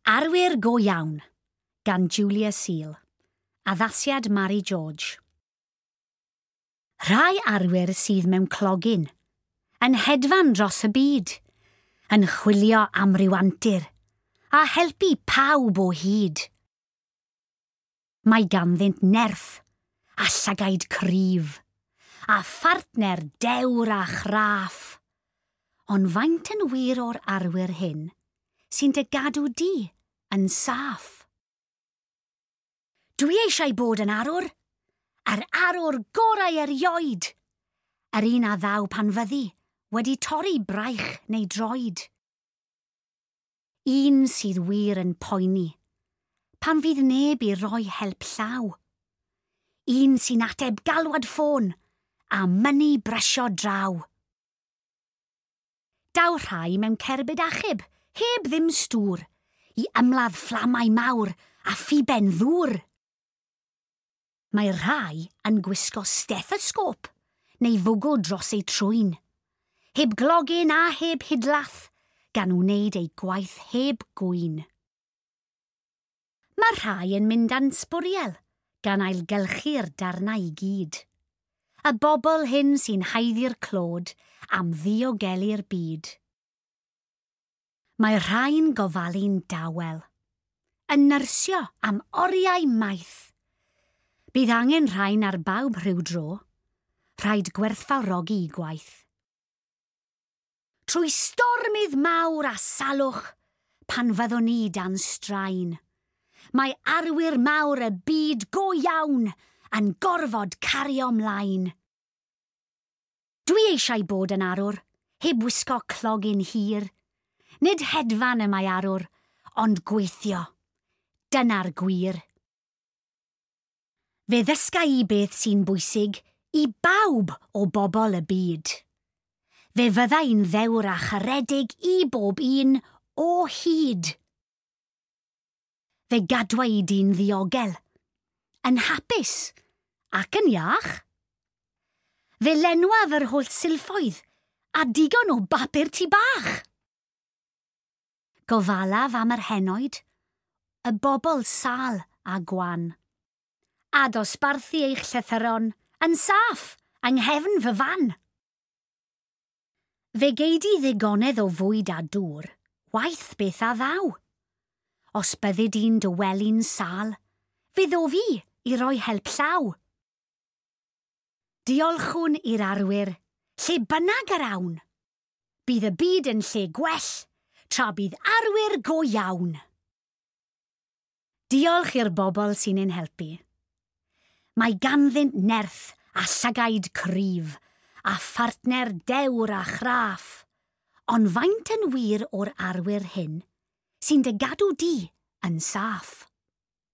Arwyr Go Iawn gan Julia Seal. Addasiad Mary George. Rhai arwyr sydd mewn clogin, yn hedfan dros y byd, yn chwilio am ryw antur, a helpu pawb o hyd. Mae ganddynt nerth a llygaid cryf, a phartner dewr a chraff. Ond faint yn wir o'r arwyr hyn sy'n dy gadw di yn saff? Dwi eisiau bod yn arwr, yr arwr gorau erioed, yr un a ddaw pan fyddi wedi torri braich neu droed. Un sydd wir yn poeni, pan fydd neb i roi help llaw. Un sy'n ateb galwad ffôn a mynnu brysio draw. Daw rhai mewn cerbyd achub, heb ddim stŵr, i ymladd fflamau mawr a phiben ddŵr. Mae rhai yn gwisgo stethosgop neu fwgw dros eu trwyn, heb glogyn a heb hidlath, gan wneud eu gwaith heb gŵyn. Mae rhai yn mynd â'n sbwriel, gan ailgylchu'r darnau i gyd. Y bobl hyn sy'n haeddu'r clod am ddiogelu'r byd. Mae rhai'n gofalu'n dawel, yn nyrsio am oriau maith. Bydd angen rhain ar bawb rhyw dro, rhaid gwerthfawrogi i gwaith. Trwy stormydd mawr a salwch, pan fyddwn ni dan straen, mae arwyr mawr y byd go iawn yn gorfod cario mlaen. Dwi eisiau bod yn arwr, heb wisgo clogyn hir. Nid hedfan y mae arwr, ond gweithio. Dyna'r gwir. Fe ddysga i beth sy'n bwysig i bawb o bobl y byd. Fe fydda i'n ddewr a charedig i bob un o hyd. Fe gadwa i di'n ddiogel, yn hapus ac yn iach. Fe lenwaf yr holl silffoedd a digon o bapur tŷ bach. Gofalaf am yr henoed, y bobl sâl a gwan. A dosbarthu eich llythyron yn saff yng nghefn fy fan. Fe gei di ddigonedd o fwyd a dŵr, waeth beth a ddaw. Os byddi di'n dy wely'n sâl, fe ddof i i roi help llaw. Diolchwn i'r arwyr, lle bynnag yr awn. Bydd y byd yn lle gwell, tra bydd arwyr go iawn. Diolch i'r bobl sy'n ein helpu. Mae ganddynt nerth a llygaid cryf, a phartner dewr a chraff. Ond faint yn wir o'r arwyr hyn sy'n dy gadw di yn saff?